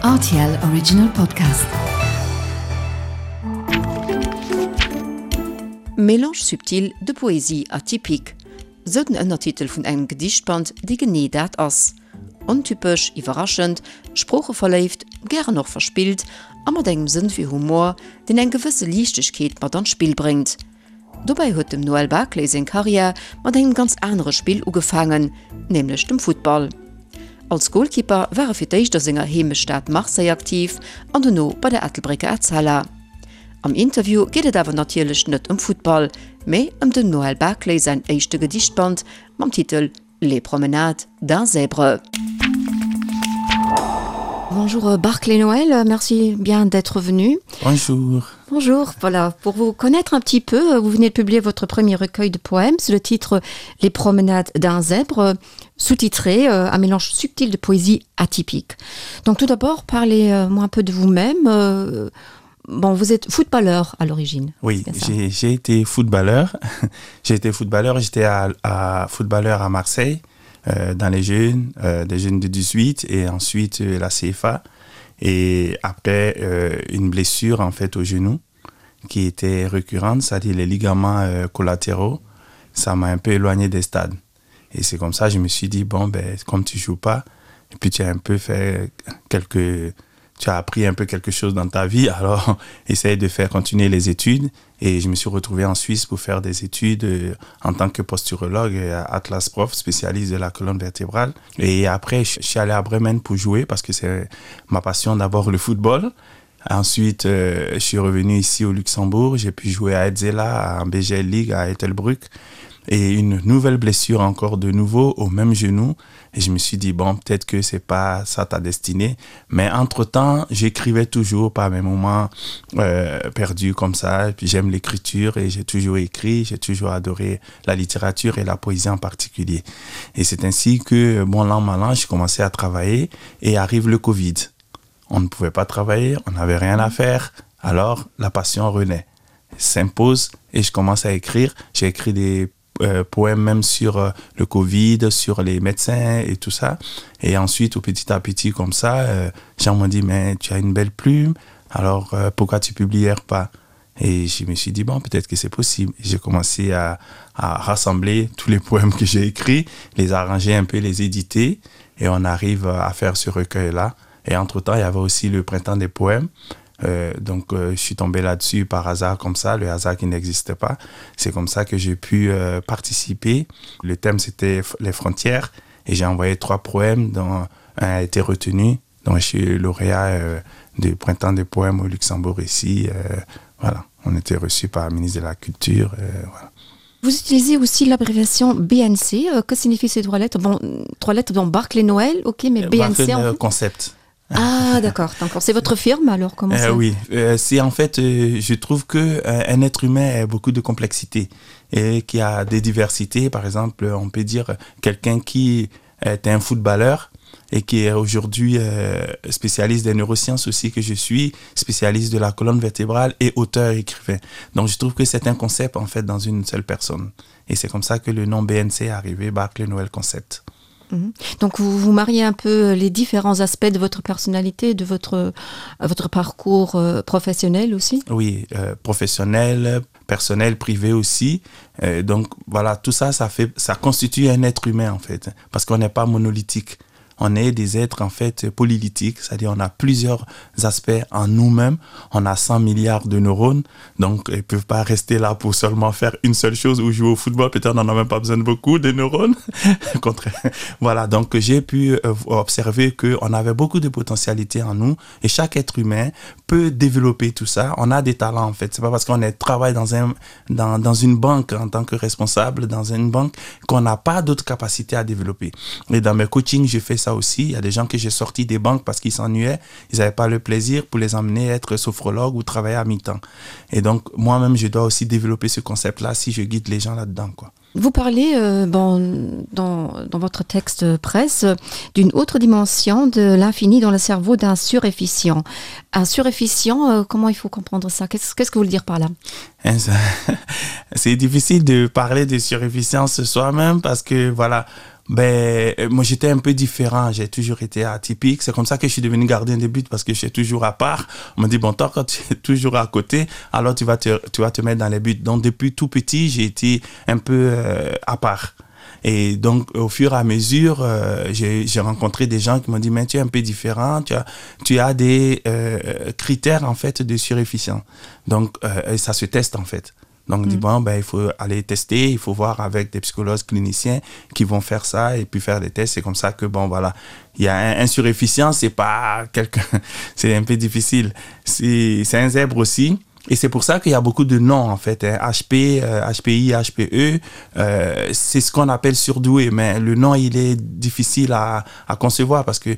RTL Original Podcast. Mélange subtil de poésie atypique, sou den Ënnertitel vun engem Gedichtband, dee genee dat ass, Ontypesch, iwwerraschend, sproocheverléift, gären och verspillt a mat engem Sënn fir Humor, deen eng gewësse Liichtegkeet mat an d'Spill bréngt. Dobäi huet dem Noël Barclay seng Karriär mat engem ganz anere Spill ugefaangen, nämlech dem Futtball. Als Golkipper war e fir d'éischt a senger Heemechtsstad Marseille aktiv an dono bei der Ettelbrécker Etzella. Am Interview geet et awer natierlech net ëm Futtball, mee ëm dem Noël Barclay säin éischte Gedichtband mam Titel Les promenades d'un zèbre. Bonjour euh, Barclay Noël, merci bien d'être venu. Bonjour. Bonjour, voilà, pour vous connaître un petit peu, euh, vous venez de publier votre premier recueil de poèmes sous le titre Les promenades d'un zèbre, sous-titré euh, un mélange subtil de poésie atypique. Donc tout d'abord, parlez-moi un peu de vous-même. Euh, bon, vous êtes footballeur à l'origine. Oui, j'ai été footballeur. j'ai été footballeur, j'étais à, à footballeur à Marseille euh, dans les jeunes, euh, des jeunes de 18 et ensuite euh, la CFA et après euh, une blessure en fait au genou qui était récurrente, c'est-à-dire les ligaments euh, collatéraux, ça m'a un peu éloigné des stades. Et c'est comme ça je me suis dit bon ben comme tu joues pas et puis tu as un peu fait quelques tu as appris un peu quelque chose dans ta vie alors essaye de faire continuer les études et je me suis retrouvé en Suisse pour faire des études euh, en tant que posturologue et Atlas prof spécialiste de la colonne vertébrale et après je suis allé à Bremen pour jouer parce que c'est ma passion d'abord le football ensuite euh, je suis revenu ici au Luxembourg j'ai pu jouer à Edzela en BGL League à Ettelbruck et une nouvelle blessure encore de nouveau au même genou et je me suis dit bon peut-être que c'est pas ça ta destinée mais entre temps j'écrivais toujours par mes moments euh, perdus comme ça et puis j'aime l'écriture et j'ai toujours écrit j'ai toujours adoré la littérature et la poésie en particulier et c'est ainsi que bon l'an mal j'ai commencé à travailler et arrive le covid on ne pouvait pas travailler on n'avait rien à faire alors la passion renaît s'impose et je commence à écrire j'ai écrit des euh, poèmes même sur euh, le covid sur les médecins et tout ça et ensuite au petit à petit comme ça euh, jean m'ont dit mais tu as une belle plume alors euh, pourquoi tu publières pas et je me suis dit bon peut-être que c'est possible j'ai commencé à, à rassembler tous les poèmes que j'ai écrits les arranger un peu les éditer et on arrive à faire ce recueil là et entre temps il y avait aussi le printemps des poèmes euh, donc euh, je suis tombé là-dessus par hasard comme ça le hasard qui n'existe pas c'est comme ça que j'ai pu euh, participer le thème c'était les frontières et j'ai envoyé trois poèmes dont un a été retenu donc je suis lauréat euh, du printemps des poèmes au luxembourg ici euh, voilà on était reçu par le ministre de la culture euh, voilà. Vous utilisez aussi l'abréviation BNC. Euh, que signifie ces trois lettres bon, Trois lettres dans Barclay Noël, ok, mais euh, BNC. En fait... concept. Ah d'accord, c'est votre firme alors comment euh, Oui, euh, c'est en fait, euh, je trouve que euh, un être humain a beaucoup de complexité et qui a des diversités. Par exemple, on peut dire quelqu'un qui est un footballeur et qui est aujourd'hui euh, spécialiste des neurosciences aussi que je suis, spécialiste de la colonne vertébrale et auteur écrivain. Donc je trouve que c'est un concept en fait dans une seule personne. Et c'est comme ça que le nom BNC est arrivé, Barclay Noël Concept. Mhm. Donc vous vous mariez un peu les différents aspects de votre personnalité, de votre, euh, votre parcours euh, professionnel aussi Oui, euh, professionnel, personnel, privé aussi. Euh, donc voilà, tout ça, ça, fait, ça constitue un être humain en fait, parce qu'on n'est pas monolithique on est des êtres en fait polylytiques, c'est-à-dire on a plusieurs aspects en nous-mêmes, on a 100 milliards de neurones, donc ils peuvent pas rester là pour seulement faire une seule chose ou jouer au football, peut-être on n'en a même pas besoin de beaucoup de neurones. voilà, donc j'ai pu euh, observer qu'on avait beaucoup de potentialités en nous et chaque être humain peut développer tout ça. On a des talents en fait, c'est pas parce qu'on est travaille dans, un, dans, dans une banque en tant que responsable dans une banque qu'on n'a pas d'autres capacités à développer. Et dans mes coachings, je fais ça aussi. Il y a des gens que j'ai sortis des banques parce qu'ils s'ennuyaient, ils n'avaient pas le plaisir pour les emmener être sophrologue ou travailler à mi-temps. Et donc moi-même, je dois aussi développer ce concept-là si je guide les gens là-dedans. quoi. Vous parlez euh, bon, dans, dans votre texte presse d'une autre dimension de l'infini dans le cerveau d'un surefficient. Un surefficient, euh, comment il faut comprendre ça Qu'est-ce qu que vous voulez dire par là C'est difficile de parler de surefficience soi-même parce que voilà, Ben, euh, moi j'étais un peu différent, j'ai toujours été atypique. C'est comme ça que je suis devenu gardien de but parce que j'étais toujours à part. On m'a dit bon toi quand tu es toujours à côté, alors tu vas te, tu vas te mettre dans les buts. Donc depuis tout petit, j'ai été un peu euh, à part. Et donc au fur et à mesure, euh, j'ai rencontré des gens qui m'ont dit mais tu es un peu différent, tu as, tu as des euh, critères en fait de surefficient. Donc euh, ça se teste en fait. Donc, mm. dit, bon, ben, il faut aller tester, il faut voir avec des psychologues cliniciens qui vont faire ça et puis faire des tests. C'est comme ça que, bon, voilà, il y a un, un surefficient, c'est pas quelqu'un, c'est un peu difficile. C'est un zèbre aussi. Et c'est pour ça qu'il y a beaucoup de noms, en fait. Hein. HP, euh, HPI, HPE, euh, c'est ce qu'on appelle surdoué. Mais le nom, il est difficile à, à concevoir parce que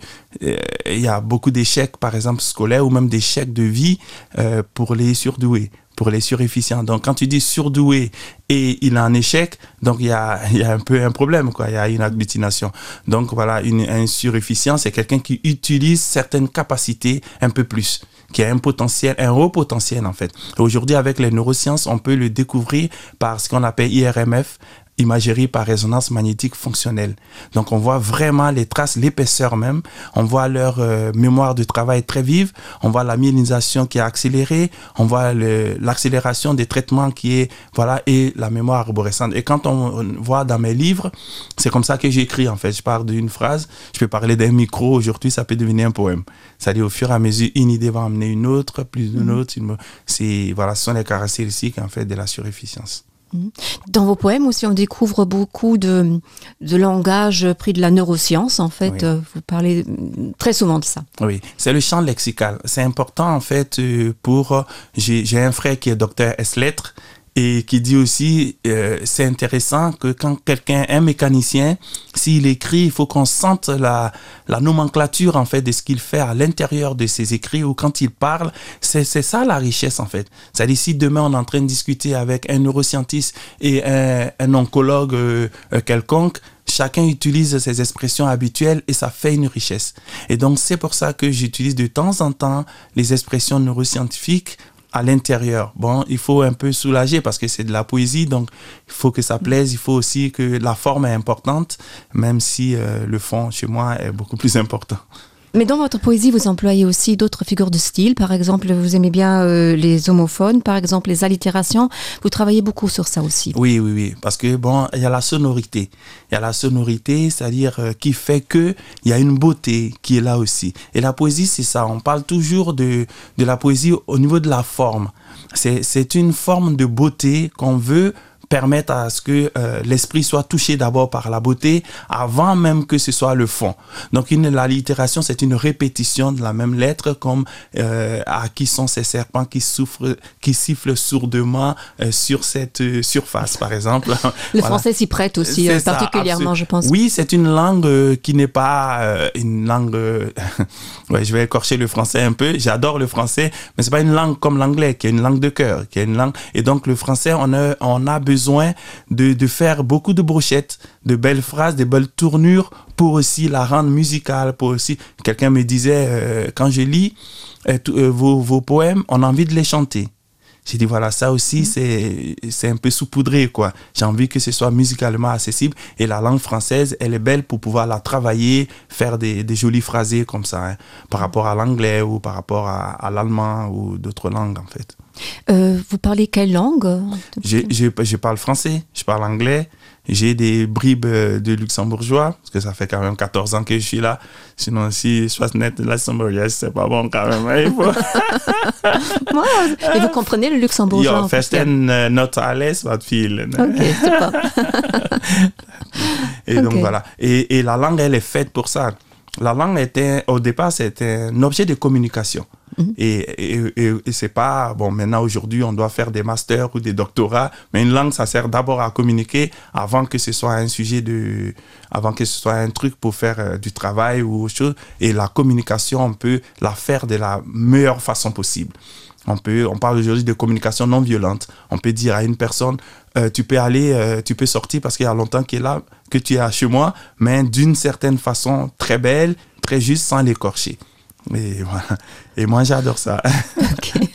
euh, il y a beaucoup d'échecs, par exemple, scolaires ou même d'échecs de vie euh, pour les surdoués pour les surefficients. Donc quand tu dis surdoué et il a un échec, donc il y a, il y a un peu un problème, quoi. Il y a une agglutination. Donc voilà, une, un surefficient, c'est quelqu'un qui utilise certaines capacités un peu plus, qui a un potentiel, un haut potentiel en fait. Aujourd'hui, avec les neurosciences, on peut le découvrir par ce qu'on appelle IRMF, imagerie par résonance magnétique fonctionnelle. Donc on voit vraiment les traces, l'épaisseur même, on voit leur euh, mémoire de travail très vive, on voit la myélinisation qui est accélérée, on voit l'accélération des traitements qui est voilà et la mémoire arborescente. Et quand on voit dans mes livres, c'est comme ça que j'écris en fait, je parle d'une phrase, je peux parler d'un micro aujourd'hui, ça peut devenir un poème. Ça dit au fur et à mesure une idée va amener une autre, plus d'une mmh. autre, une... c'est voilà, ce sont les caractéristiques en fait de la surefficience. Mhm. Dans vos poèmes aussi, on découvre beaucoup de, de langage pris de la neuroscience. En fait, oui. Euh, vous parlez très souvent de ça. Oui, c'est le champ lexical. C'est important en fait euh, pour. J'ai un frère qui est docteur S-lettres et qui dit aussi euh, c'est intéressant que quand quelqu'un un mécanicien s'il écrit il faut qu'on sente la la nomenclature en fait de ce qu'il fait à l'intérieur de ses écrits ou quand il parle c'est ça la richesse en fait c'est à dire si demain on est en train de discuter avec un neuroscientiste et un, un oncologue euh, euh quelconque chacun utilise ses expressions habituelles et ça fait une richesse et donc c'est pour ça que j'utilise de temps en temps les expressions neuroscientifiques à l'intérieur. Bon, il faut un peu soulager parce que c'est de la poésie, donc il faut que ça plaise, il faut aussi que la forme est importante, même si euh, le fond chez moi est beaucoup plus important. Mais dans votre poésie, vous employez aussi d'autres figures de style. Par exemple, vous aimez bien euh, les homophones, par exemple les allitérations. Vous travaillez beaucoup sur ça aussi. Oui, oui, oui. Parce que bon, il y a la sonorité. Il y a la sonorité, c'est-à-dire euh, qui fait que il y a une beauté qui est là aussi. Et la poésie, c'est ça. On parle toujours de, de la poésie au niveau de la forme. C'est une forme de beauté qu'on veut permettre à ce que euh, l'esprit soit touché d'abord par la beauté avant même que ce soit le fond. Donc une, l'allitération, c'est une répétition de la même lettre comme euh, à qui sont ces serpents qui souffrent, qui sifflent sourdement euh, sur cette euh, surface, par exemple. Le voilà. français s'y prête aussi, euh, ça, particulièrement, je pense. Oui, c'est une langue euh, qui n'est pas euh, une langue... Euh, ouais, je vais écorcher le français un peu, j'adore le français, mais c'est pas une langue comme l'anglais, qui est une langue de cœur, qui est une langue... Et donc le français, on a, on a besoin de, de faire beaucoup de brochettes, de belles phrases, de belles tournures pour aussi la rendre musicale, pour aussi... Quelqu'un me disait, euh, quand je lis euh, euh, vos, vos poèmes, on a envie de les chanter. J'ai dit voilà ça aussi mmh. c'est un peu saupoudré quoi. J'ai envie que ce soit musicalement accessible et la langue française elle est belle pour pouvoir la travailler, faire des, des jolis phrasés comme ça hein, par rapport à l'anglais ou par rapport à, à l'allemand ou d'autres langues en fait. Euh, vous parlez quelle langue je, je, je parle français, je parle anglais, j'ai des bribes euh, de luxembourgeois parce que ça fait quand même 14 ans que je suis là sinon si je passe net de luxembourgeois c'est pas bon quand même hein, faut... et vous comprenez le luxembourgeois ja, not alles wat viel okay, et okay. donc voilà et, et la langue elle est faite pour ça la langue était au départ c'était un objet de communication Mm -hmm. Et, et, et, et c'est pas bon maintenant aujourd'hui on doit faire des masters ou des doctorats mais une langue ça sert d'abord à communiquer avant que ce soit un sujet de avant que ce soit un truc pour faire euh, du travail ou autre chose et la communication on peut la faire de la meilleure façon possible on peut on parle aujourd'hui de communication non violente on peut dire à une personne euh, tu peux aller euh, tu peux sortir parce qu'il y a longtemps qu'il est là que tu es à chez moi mais d'une certaine façon très belle très juste sans l'écorcher et voilà et moi j'adore ça okay.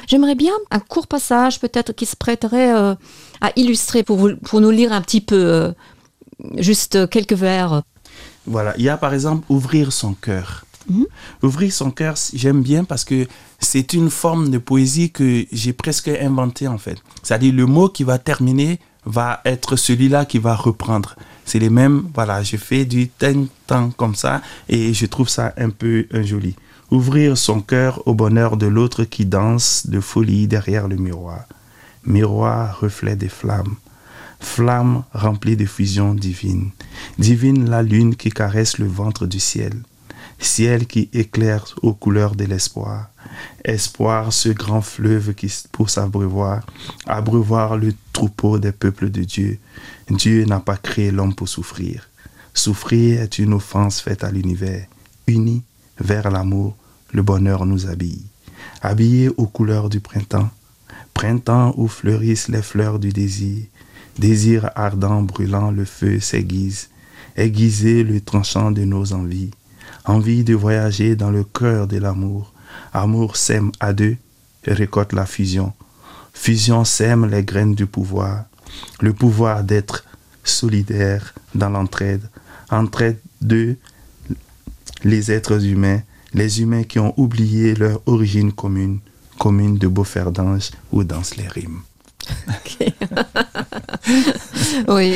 j'aimerais bien un court passage peut-être qui se prêterait euh, à illustrer pour vous, pour nous lire un petit peu euh, Juste quelques vers. Voilà, il y a par exemple ouvrir son cœur. Mmh. Ouvrir son cœur, j'aime bien parce que c'est une forme de poésie que j'ai presque inventée en fait. C'est-à-dire le mot qui va terminer va être celui-là qui va reprendre. C'est les mêmes, voilà, je fais du temps comme ça et je trouve ça un peu un joli. Ouvrir son cœur au bonheur de l'autre qui danse de folie derrière le miroir. Miroir reflet des flammes. Flamme remplie de fusion divine. Divine la lune qui caresse le ventre du ciel. Ciel qui éclaire aux couleurs de l'espoir. Espoir ce grand fleuve qui pour s'abreuvoir, abreuvoir le troupeau des peuples de Dieu. Dieu n'a pas créé l'homme pour souffrir. Souffrir est une offense faite à l'univers. Uni vers l'amour, le bonheur nous habille. Habillé aux couleurs du printemps, printemps où fleurissent les fleurs du désir, désir ardent brûlant le feu s'aiguise, aiguiser le tranchant de nos envies, envie de voyager dans le cœur de l'amour, amour sème à deux, récolte la fusion. Fusion sème les graines du pouvoir, le pouvoir d'être solidaire dans l'entraide, entraide de les êtres humains, les humains qui ont oublié leur origine commune, commune de Beauferdange où dansent les rimes. Okay. oui,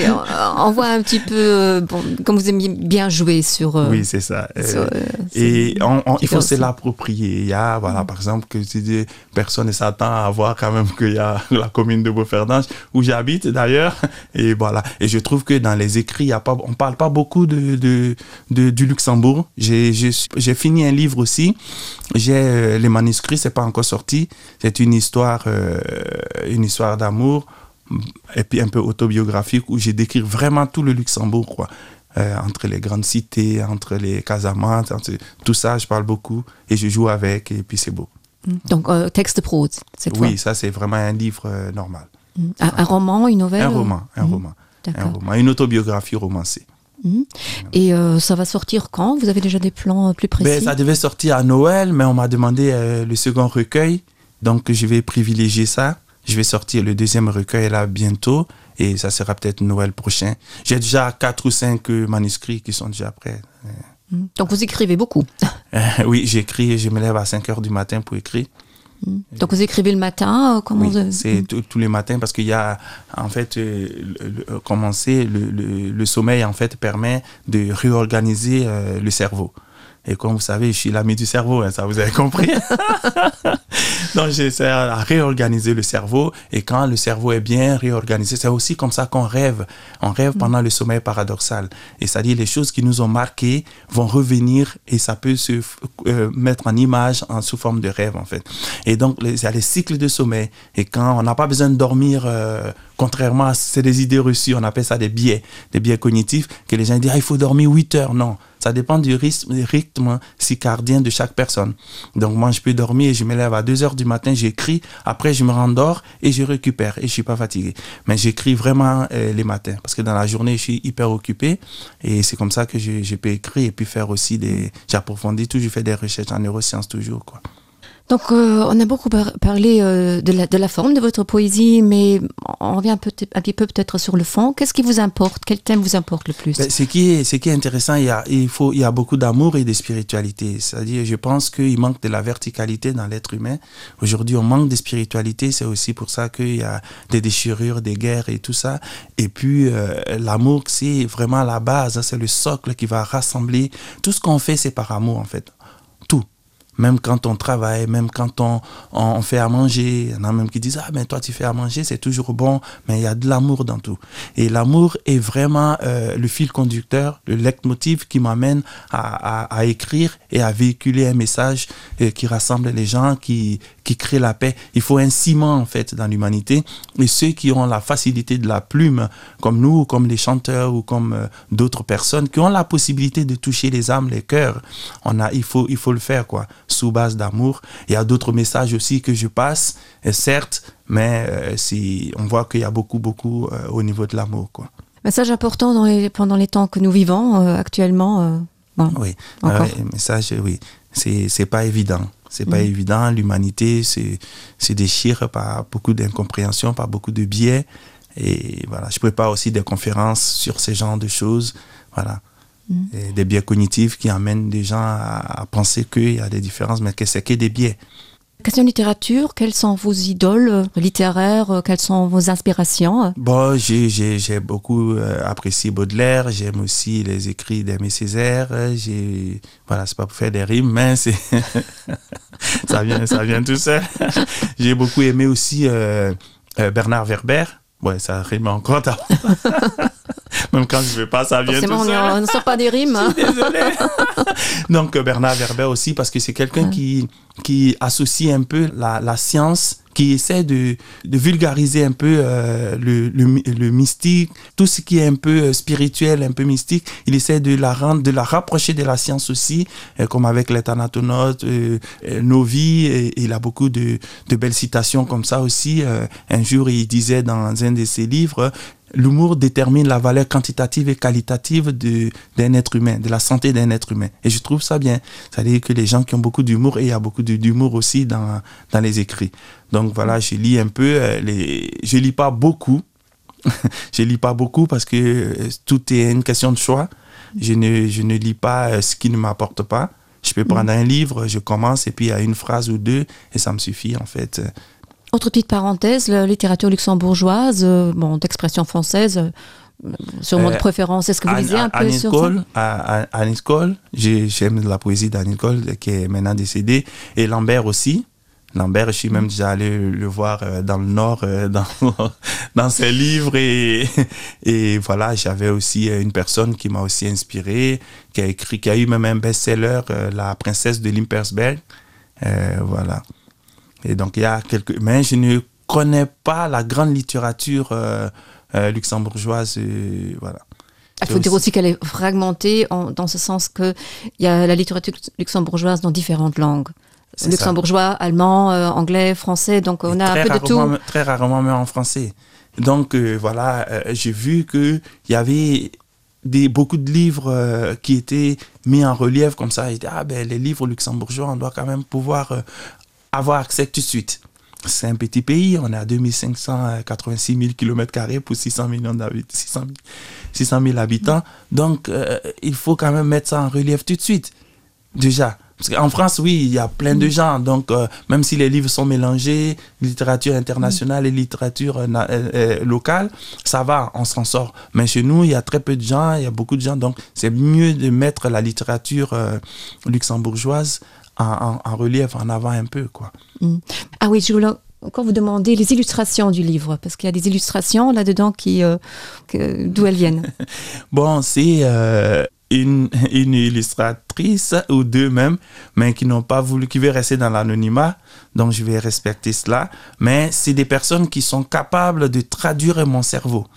on voit un petit peu euh, bon, comme vous aimiez bien jouer sur euh, oui c'est ça sur, euh, et on, on, il faut se l'approprier il ya voilà mm. par exemple que tu dis personne ne s'attend à voir quand même qu'il ya la commune de Beauferdange où j'habite d'ailleurs et voilà et je trouve que dans les écrits il ya pas on parle pas beaucoup de, de, de du Luxembourg j'ai j'ai fini un livre aussi j'ai euh, les manuscrits c'est pas encore sorti c'est une histoire euh, une histoire d'amour et puis un peu autobiographique où j'ai décrit vraiment tout le Luxembourg quoi euh, entre les grandes cités entre les casamantes entre tout ça je parle beaucoup et je joue avec et puis c'est beau donc euh, texte prose cette oui ça c'est vraiment un livre euh, normal mm. un, un roman une nouvelle un roman un mmh. roman un roman une autobiographie romancée mmh. et euh, ça va sortir quand vous avez déjà des plans euh, plus précis ben, ça devait sortir à noël mais on m'a demandé euh, le second recueil donc je vais privilégier ça je vais sortir le deuxième recueil là bientôt et ça sera peut-être Noël prochain. J'ai déjà quatre ou cinq euh, manuscrits qui sont déjà prêts. Mmh. Donc vous écrivez beaucoup euh, Oui, j'écris et je me lève à 5 heures du matin pour écrire. Mmh. Donc vous écrivez le matin euh, comment oui, c'est mmh. tous les matins parce qu'il y a en fait euh, le, commencer le, le, le sommeil en fait permet de réorganiser euh, le cerveau. Et comme vous savez, je suis l'ami du cerveau, hein, ça vous avez compris. Donc j'essaie à réorganiser le cerveau et quand le cerveau est bien réorganisé, c'est aussi comme ça qu'on rêve. On rêve mm. pendant le sommeil paradoxal. Et ça dit les choses qui nous ont marqué vont revenir et ça peut se euh, mettre en image en sous forme de rêve en fait. Et donc il y a les cycles de sommeil et quand on n'a pas besoin de dormir euh, contrairement à c'est des idées reçues, on appelle ça des biais, des biais cognitifs que les gens disent ah, il faut dormir 8 heures. Non, ça dépend du rythme, rythme circadien de chaque personne. Donc moi je peux dormir et je me lève à 2 heures du matin, j'écris, après je me rendors et je récupère et je suis pas fatigué. Mais j'écris vraiment euh, les matins parce que dans la journée je suis hyper occupé et c'est comme ça que je, je peux écrire et puis faire aussi des j'approfondis tout, je fais des recherches en neurosciences toujours quoi. Donc euh, on a beaucoup par parlé euh, de, la, de la forme de votre poésie, mais on revient un, peu, un petit peu peut-être sur le fond. Qu'est-ce qui vous importe Quel thème vous importe le plus ben, ce, qui est, ce qui est intéressant, il y a, il faut, il y a beaucoup d'amour et de spiritualité. C'est-à-dire, je pense qu'il manque de la verticalité dans l'être humain. Aujourd'hui, on manque de spiritualité. C'est aussi pour ça qu'il y a des déchirures, des guerres et tout ça. Et puis, euh, l'amour, c'est vraiment la base, c'est le socle qui va rassembler. Tout ce qu'on fait, c'est par amour, en fait. Tout même quand on travaille, même quand on, on fait à manger, il y en a même qui disent ah mais toi tu fais à manger, c'est toujours bon, mais il y a de l'amour dans tout. Et l'amour est vraiment euh, le fil conducteur, le leitmotiv qui m'amène à, à, à écrire et à véhiculer un message euh, qui rassemble les gens, qui, qui crée la paix. Il faut un ciment en fait dans l'humanité et ceux qui ont la facilité de la plume, comme nous, comme les chanteurs ou comme euh, d'autres personnes qui ont la possibilité de toucher les âmes, les cœurs, on a, il faut, il faut le faire quoi sous base d'amour. Il y a d'autres messages aussi que je passe, et certes, mais euh, si on voit qu'il y a beaucoup beaucoup euh, au niveau de l'amour quoi. Message important dans les, pendant les temps que nous vivons euh, actuellement euh, bon, oui, euh, message oui, c'est pas évident. C'est pas mmh. évident, l'humanité se, se déchire par beaucoup d'incompréhension, par beaucoup de biais. Et voilà, je prépare aussi des conférences sur ce genre de choses. Voilà. Mmh. Et des biais cognitifs qui amènent des gens à, à penser qu'il y a des différences, mais que c'est que des biais. Question littérature, quelles sont vos idoles euh, littéraires, euh, quelles sont vos inspirations Bon, j'ai beaucoup euh, apprécié Baudelaire, j'aime aussi les écrits d'Aimé Césaire, j'ai voilà, c'est pas pour faire des rimes, mais c'est ça vient ça vient tout seul. j'ai beaucoup aimé aussi euh, euh, Bernard Werber. Ouais, ça rime encore même quand je veux pas ça vient tout seul. on ne sort pas des rimes désolé donc euh, Bernard Werber aussi parce que c'est quelqu'un ouais. qui qui associe un peu la, la science qui essaie de, de vulgariser un peu euh, le, le, le mystique tout ce qui est un peu euh, spirituel un peu mystique il essaie de la rendre de la rapprocher de la science aussi euh, comme avec les thanatonautes euh, euh, nos vies et, et il a beaucoup de, de belles citations comme ça aussi euh, un jour il disait dans un de ses livres l'humour détermine la valeur quantitative et qualitative d'un être humain, de la santé d'un être humain. Et je trouve ça bien. C'est-à-dire que les gens qui ont beaucoup d'humour, et il y a beaucoup d'humour aussi dans, dans les écrits. Donc voilà, je lis un peu, euh, les... je lis pas beaucoup. je lis pas beaucoup parce que euh, tout est une question de choix. Je ne, je ne lis pas euh, ce qui ne m'apporte pas. Je peux prendre mmh. un livre, je commence et puis il y a une phrase ou deux et ça me suffit en fait. Autre petite parenthèse, la littérature luxembourgeoise, euh, bon, d'expression française, euh, sûrement de euh, préférence, est-ce que vous lisez un peu sur Cole, Annie Cole, j'aime la poésie d'Annie Cole qui est maintenant décédée, et Lambert aussi. Lambert, je suis même déjà allé le voir euh, dans le Nord, euh, dans, dans ses livres. Et, et voilà, j'avais aussi une personne qui m'a aussi inspiré, qui a écrit, qui a eu même un best-seller, La princesse de Limpersberg. Euh, voilà. Et donc il y a quelques mais je ne connais pas la grande littérature euh, euh, luxembourgeoise euh, voilà. Il faut dire aussi qu'elle est fragmentée en, dans ce sens que il y a la littérature luxembourgeoise dans différentes langues. Luxembourgeois, allemand, euh, anglais, français, donc on Et a un peu de tout. Très rarement mais en français. Donc euh, voilà, euh, j'ai vu qu'il y avait des, beaucoup de livres euh, qui étaient mis en relief comme ça. Et, ah, ben, les livres luxembourgeois, on doit quand même pouvoir euh, avoir accès tout de suite. C'est un petit pays, on est à 2586 000 km carrés pour 600 millions d'habitants 600, 600 000 habitants. Donc euh, il faut quand même mettre ça en relief tout de suite. Déjà parce qu'en France oui il y a plein de gens donc euh, même si les livres sont mélangés littérature internationale et littérature euh, euh, euh, locale ça va on s'en sort mais chez nous il y a très peu de gens il y a beaucoup de gens donc c'est mieux de mettre la littérature euh, luxembourgeoise en, en, en relief en avant un peu quoi mm. ah oui je voulais encore vous demander les illustrations du livre parce qu'il y a des illustrations là dedans qui euh, d'où elles viennent bon c'est euh, une, une illustratrice ou deux même mais qui n'ont pas voulu qui veut rester dans l'anonymat donc je vais respecter cela mais c'est des personnes qui sont capables de traduire mon cerveau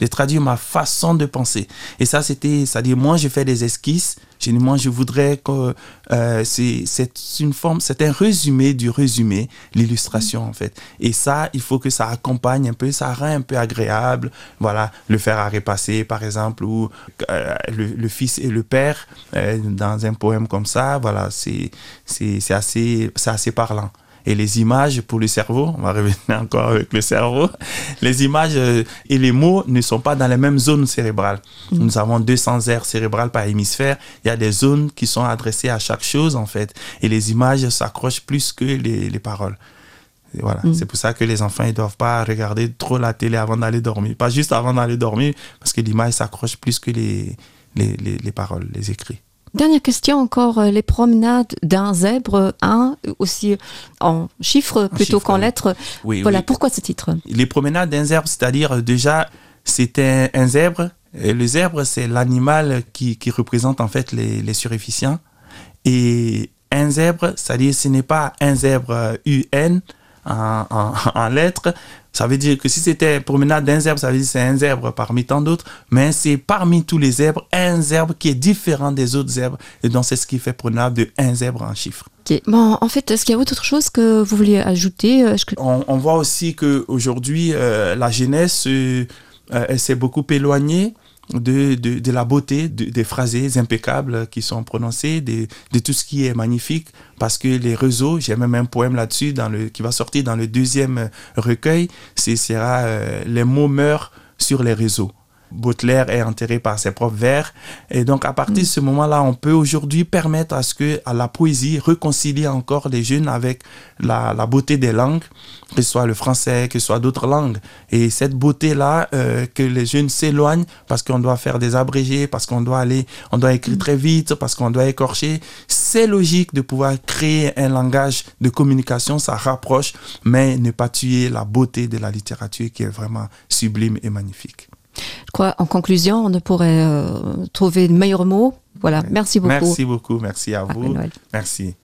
de traduire ma façon de penser et ça c'était c'est à dire moi j'ai fait des esquisses J'ai dit, moi je voudrais que euh, c'est une forme c'est un résumé du résumé l'illustration en fait et ça il faut que ça accompagne un peu ça rend un peu agréable voilà le faire à repasser par exemple ou euh, le, le fils et le père euh, dans un poème comme ça voilà c'est c'est assez c'est assez parlant et les images pour le cerveau on va revenir encore avec le cerveau les images euh, et les mots ne sont pas dans les mêmes zones cérébrales mmh. nous avons 200 aires cérébrales par hémisphère il y a des zones qui sont adressées à chaque chose en fait et les images s'accrochent plus que les, les paroles et voilà mmh. c'est pour ça que les enfants ils doivent pas regarder trop la télé avant d'aller dormir pas juste avant d'aller dormir parce que l'image s'accroche plus que les les, les, les paroles les écrits Dernière question encore, euh, les promenades d'un zèbre, un aussi en chiffres plutôt qu'en lettres. Oui, voilà oui. pourquoi ce titre Les promenades d'un zèbre, c'est-à-dire euh, déjà c'était un zèbre. Et le zèbre, c'est l'animal qui, qui représente en fait les, les surefficients. Et un zèbre, c'est-à-dire ce n'est pas un zèbre UN euh, en, en, en lettres, Ça veut dire que si c'était promenade d'un zèbre, ça veut dire c'est un zèbre parmi tant d'autres, mais c'est parmi tous les zèbres, un zèbre qui est différent des autres zèbres. Et donc c'est ce qui fait promenade de un zèbre en chiffres. Okay. Bon, en fait, est-ce qu'il y a autre chose que vous vouliez ajouter euh, que... on, on voit aussi qu'aujourd'hui, euh, la jeunesse euh, euh, elle s'est beaucoup éloignée. de, de, de la beauté de, des phrasés impeccables qui sont prononcées, de, de tout ce qui est magnifique, parce que les réseaux, j'ai même un poème là-dessus dans le, qui va sortir dans le deuxième recueil, ce sera euh, les mots meurent sur les réseaux. Baudelaire est enterré par ses propres vers. Et donc à partir de ce moment-là, on peut aujourd'hui permettre à ce que à la poésie réconcilie encore les jeunes avec la, la beauté des langues, que ce soit le français, que ce soit d'autres langues. Et cette beauté-là, euh, que les jeunes s'éloignent parce qu'on doit faire des abrégés, parce qu'on doit aller, on doit écrire très vite, parce qu'on doit écorcher. C'est logique de pouvoir créer un langage de communication, ça rapproche, mais ne pas tuer la beauté de la littérature qui est vraiment sublime et magnifique. Je crois en conclusion, on ne pourrait euh, trouver de meilleurs mots. Voilà, merci beaucoup. Merci beaucoup, merci à vous. Merci.